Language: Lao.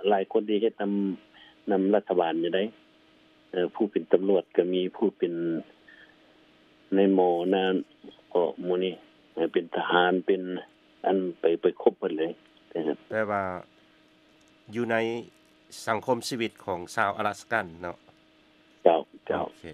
ຫຼາຍຄົນທີ່ເຮັດນຳ ນຳລັດຖະບານຢູ່ໃດ໋ ເອີ ຜູ້ເປັນຕຳຫຼວດກໍມີ ຜູ້ເປັນນາຍໝໍນາ ກໍໝູ່ນີ້ ເປັນທະຫານ ເປັນອັນ ໄປ ໄປຄົບເບິດເລີຍ. ແປວ່າຢູ່ໃນສັງຄົມຊີວິດຂອງຊາວອາລາສກັນເນາະ? ເຈົ້າ ເຈົ້າ. ໂອເຄ.